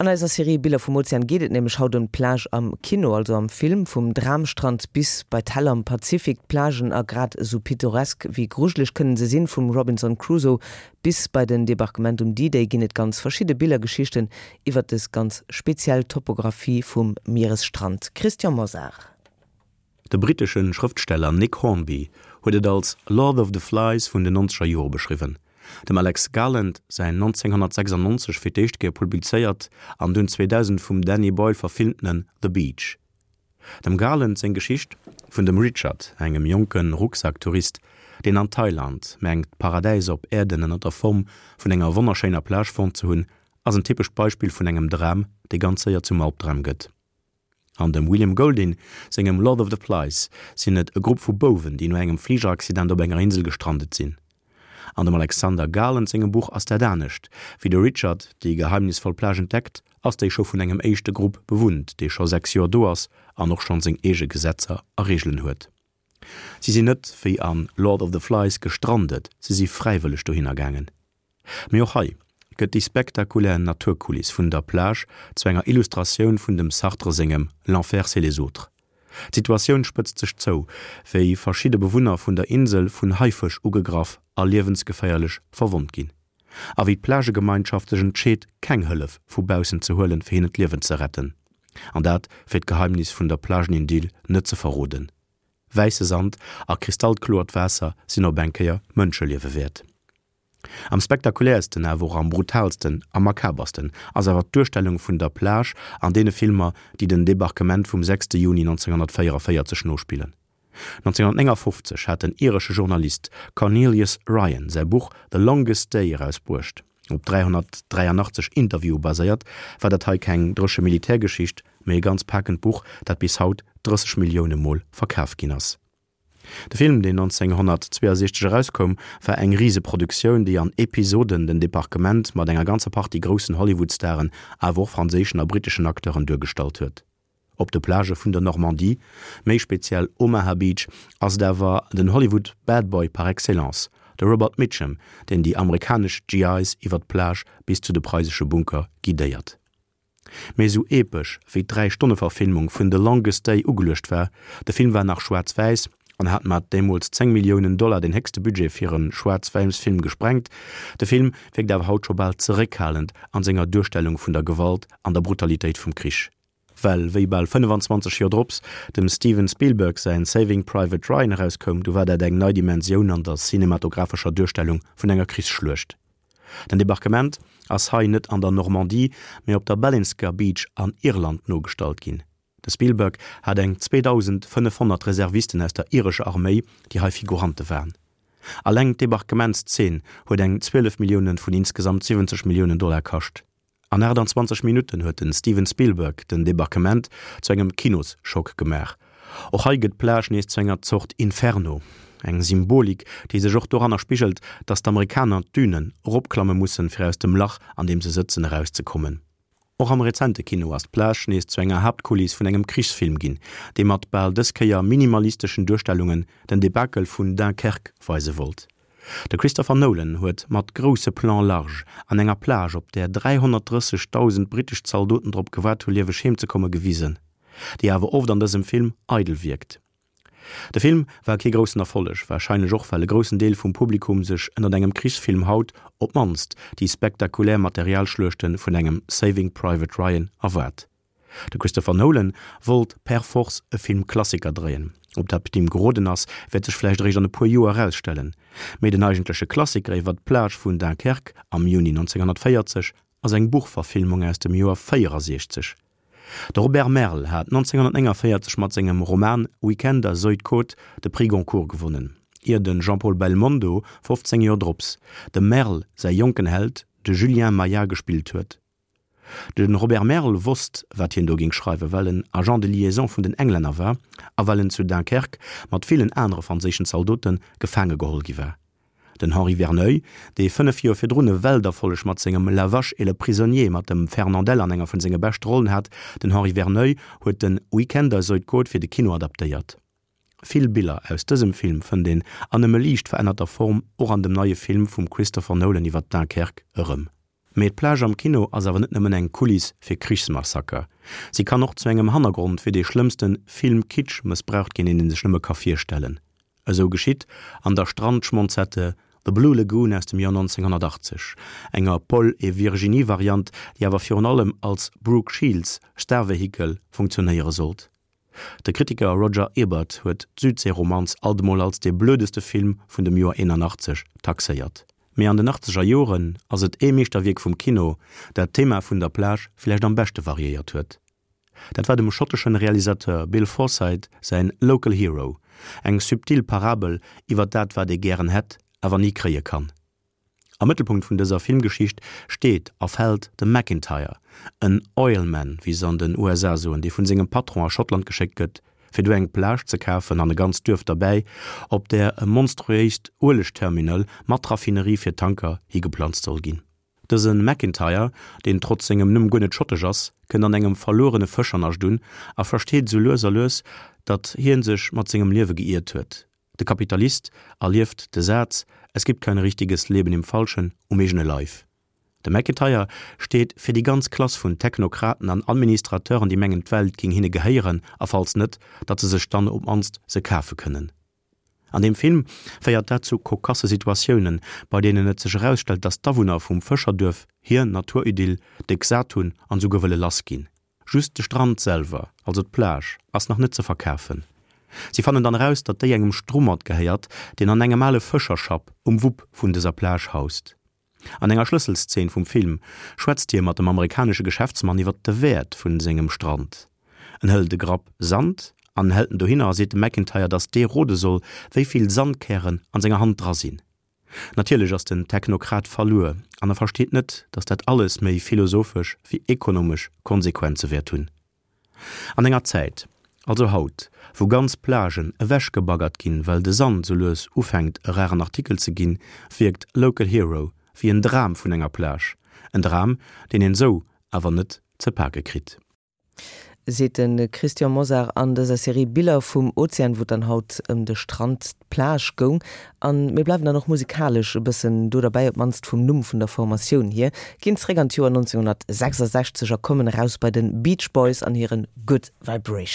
An eiser Serie Biller vum Ozean geet et nämlech haut ëm d'Plage am Kino, also am Film. Vum Dramstrand bis bei d'Hell am Pazifik, d'Plagen a grad esou pittoresk wéi grujeleg kënnen se sinn. Vum Robinson Crusoe bis bei den Debarquement um D-Day ginn et ganz verschidde Billergeschichten iwwer dës ganz speziell Topographie vum Mieresstrand. Christian Mosar. De brittesche Schrëftsteller Nick Hornby huet et als Lord of the Flies vun den nonzeger Jore beschriwwen. Dem Alex Garland säin 1996 fir d'éischt Kéier publizéiert an dunn 2000 vum Danny Boyle verfilmtene The Beach. Dem Garland seng Geschicht vun dem Richard, engem jonke Rucksacktourist, deen an Thailand mengt d'Paradäis op Äerden ënner der Form vun enger wonnerschéiner Plage fonnt ze hunn, ass en typescht Beispill vun engem Dram, dee ganz séier zum Albdram gëtt. An dem William Golding sengem Lord of the Flies sinn et e Grupp vu Bouwen, déi no engem Fligeraccident op enger Insel gestrandet sinn. An dem Alexander Garland sengem Buch ass dat anescht, Wéi de Richard déi geheimnisvoll Plage entdeckt, ass déi scho vun engem éischte Grupp bewunnt, dee scho 6 Joer do ass an och schonn seng eege Gesetzer a Reegelen huet. Si sinn net wéi a Lord of the Flies gestrandet, si si fräiwëlleg dohinner gaangen. Mee och hei gëtt déi spektakulär Naturkuliss vun der Plage zu enger Illustratioun vun dem Sartre sengem L'enfer c'est les autres. D'Situatioun spëtzt sech zou, wéi verschidde Bewunner vun der Insel vun Haifësch ugegraff a liewensgeféierlech verwonnt ginn. A wéi d'Plagegemeinschaft sech entscheet, keng Hëllef vu baussen ze huelen, fir hinnen d'Liewen ze retten. An dat fir d'Geheimnis vun der Plagenidyll net ze verroden. Wäisse Sand a kristallkloert Waasser sinn op eng Kéier Mënscheliewe wäert. Am spektakuläersten, awer och am brutaalsten a makabersten ass awer d'Duerstellung vun der Plage an deene Filmer, déi den Debarquement vum 6 Juni 1944 nospillen. 1959 hat den iresche Journalist Cornelius Ryan säi Buch The Longest Day erausbruecht. Op 383 Interviewe baséiert, war dat hei keng dréche Militärgeschicht, mee e ganz pakend Buch, dat bis haut 30 Millioune Mol verkaf ginn ass. De Film, deen 1962 erauskoum, war eng Riseproduktioun, déi an Episoden den Debarquement mat enger ganzer Partie groussen Hollywood-Staren, awer och franséischen a britteschen Acteuren duergestallt huet. Op de Plagë vun der Normandie, méi speziell Omaha Beach, ass et awer den Hollywood Bad Boy par excellence, de Robert Mitchum, deen déi amerikanesch GIs iwwer d'Plage bis zu de preisesche Bunker guidéiert. Mee esou epesch wéi d'Dräi-Stonne-Verfilmung vun The Longest Day ugeluecht war, de Film war nach schwaarz-wäiss an hat mat deemools 10 Milliounen Dollar den héchste Budget fir e Schwaarz-wäiss-Film gesprengt, de Film wierkt awer haut scho bal zeréckhalend an senger Duerstellung vun der Gewalt an der Brutalitéit vum Krich. Well wéi bal 25 Joer drops dem Steven Spielberg säin Saving Private Ryan erauskoum, du war dat eng nei Dimensioun an der cinematographescher Duerstellung vun enger Krichsschluecht. Den Debarquement ass hei net an der Normandie, mee op der Ballinsker Beach an Irland nogestallt ginn. De Spielberg hat eng 2.500 Reservisten aus der irescher Arméi, déi hei Figurante waren. Alleng d'Debarquementszeen huet eng 12 Millioune vun insgesamt 70 Milliounen Dollar kascht. An 28 Minutten huet de Steven Spielberg den Debarquement zu engem Kinosschock gemaach. Och hei gëtt d'Plage nees zu enger Zort Inferno. Eng Symbolik, déi sech och doranner spigelt, datt d'Amerikaner d'Dünen eropklamme mussen, fir aus dem Lach, an deem se sëtzen, erauszekommen. Och am rezente Kino ass d'Plage nees zu enger Haaptkuliss vun engem Krichsfilm ginn, dee mat bal dës Kéier minimalisteschen Duerstellungen den Debakel vun Dunkerque weise wollt. De Christopher Nolan huet mat grousse Plans large an enger Plage, op där 330.000 brittesch Zaldoten drop gewaart hu lieweg heem ze komme gewisen, déi awer oft an dësem Film eidel wierkt. De Film war kee groussen Erfolleg, warscheinlech och well e groussen Deel vum Publikum sech ënnert engem Krichsfilm haut op d'mannst déi spektakulär Materialschluechte vun engem Saving Private Ryan erwaart. De Christopher Nolan wollt per force e Filmklassiker dréien. Ob dat him geroden ass, wäert sech vläicht eréischt an e puer Joer erausstellen. Mee den eigentleche Klassiker iwwer d'Plage vun Dunkerque am Juni 1940 ass eng Buchverfilmung aus dem Joer 64. De Robert Merle hat 1949 mat sengem Roman Week-end à Zuydcoote de Prix Goncourt gewonnen, ier de Jean-Paul Belmondo 15 Joer drops dem Merle säi jonken Held, de Julien Maillard gespillt huet. De Robert Merle wosst, wat hien do géing schreiwen, well en Agent de liaison vun den Englänner war a well en zu Dunkerque mat villen anere franséischen Zaldote gefaange geholl gi war. Den Henri Verneuil, dee 5 Joer virdrun e Welterfolleg mat sengem La vache et le prisonnier mat dem Fernandel an enger vun senge beschte Rollen hat, den Henri Verneuil huet den Week-end à Zuydcoote fir de Kino adaptéiert. Vill Biller aus dësem Film fënnt een an nëmme liicht verännerter Form och an dem neie Film vum Christopher Nolan iwwer Dunkerque erëm. Mee d'Plage am Kino ass awer net nëmmen eng Kuliss fir Krichsmassaker. Si kann och zu engem Hannergrond fir dee schlëmmste Film-Kitsch mëssbraucht ginn, deen ee sech nëmme ka virstellen. Esou geschitt an der Strandschmonzette The Blue Lagoon aus dem Joer 1980, enger Paul et Virginie-Variant, déi awer virun allem als Brooke Shields Starvehikel funktionéiere sollt. De Kritiker Roger Ebert huet d'Südseeromanz alt emol als dee blödeste Film vun dem Joer 81 taxéiert. Mee an den achtzeger Joren ass et ee Meeschterwierk vum Kino, dat d'Thema vun der Plage villäicht am beschte variéiert huet. Dat war dem schotteschen Realisateur Bill Forsyth säin Local Hero, eng subtil Parabel iwwer dat wat ee gären hätt, awer ni kréie kann. Am Mëttelpunkt vun dëser Filmgeschicht steet a fält de McIntyre, en Oilman, wéi se an den USA soen, dee vun sengem Patron a Schottland geschéckt gëtt, fir do eng Plage ze kafen an e ganzt Duerf derbäi, op där e monstruéist Uelegterminal mat Raffinerie fir Tanker higeplanzt soll ginn. Dëse McIntyre, deen trotz sengem Numm guer net schottesch ass, kënnt an engem verluerene Fëschernascht un a versteet esou lues a lues, datt hie sech mat sengem Liewe geiert huet. De Kapitalist erlieft de Saz Es gibt kein richtiges Leben im Falschen um eegene Leif. De McIntyre steet fir déi ganz Klass vun Technokraten an Administrateuren, déi mengen d'Welt géing hinne gehéieren a falls net, datt se sech dann op mannst se kafe kënnen. An deem Film féiert dat zu kokasse Situatiounen, bei deenen et sech erausstellt, datt d'Awunner vum Fëscherduerf hir Naturidyll déck sat hunn an esouguer wëlle lass ginn. Just de Strand selwer, also d'Plage, ass nach net ze verkafen. Si fannen dann eraus, datt déi engem Strummert gehéiert, deen an engem ale Fëscherschapp um Wupp vun dëser Plage haust. An enger Schlësselszeen vum Film schwätzt hie mat dem amerikanesche Geschäftsmann iwwer de Wäert vun sengem Strand. En hëlt e Grapp Sand an hält en dohinner a seet dem McIntyre, datt dee rode soll, wéi vill Sandkären an senger Hand dra sinn. Natierlech ass den Technokrat verluer an e versteet net, datt dat alles méi philosophesch wéi ekonomesch Konsequenze wäert hunn. An enger Zäit, also haut, wou ganz Plagen ewechgebaggert ginn, well de Sand sou lues ufänkt e raren Artikel ze ginn, wierkt Local Hero wéi en Dram vun enger Plage, en Dram, deen een sou awer net ze pake kritt. Seet de Christian Mosar an dëser Serie Biller vum Ozean, wou et dann haut ëm de Strand, d'Plage goung. A mir bleiwen dann och musikalesch e bëssen do derbäi, op d'mannst vum Numm vun der Formatioun hier, ginn zeréck an d'Joer 1966 a kommen eraus bei de Beach Boys an hire Good Vibrations.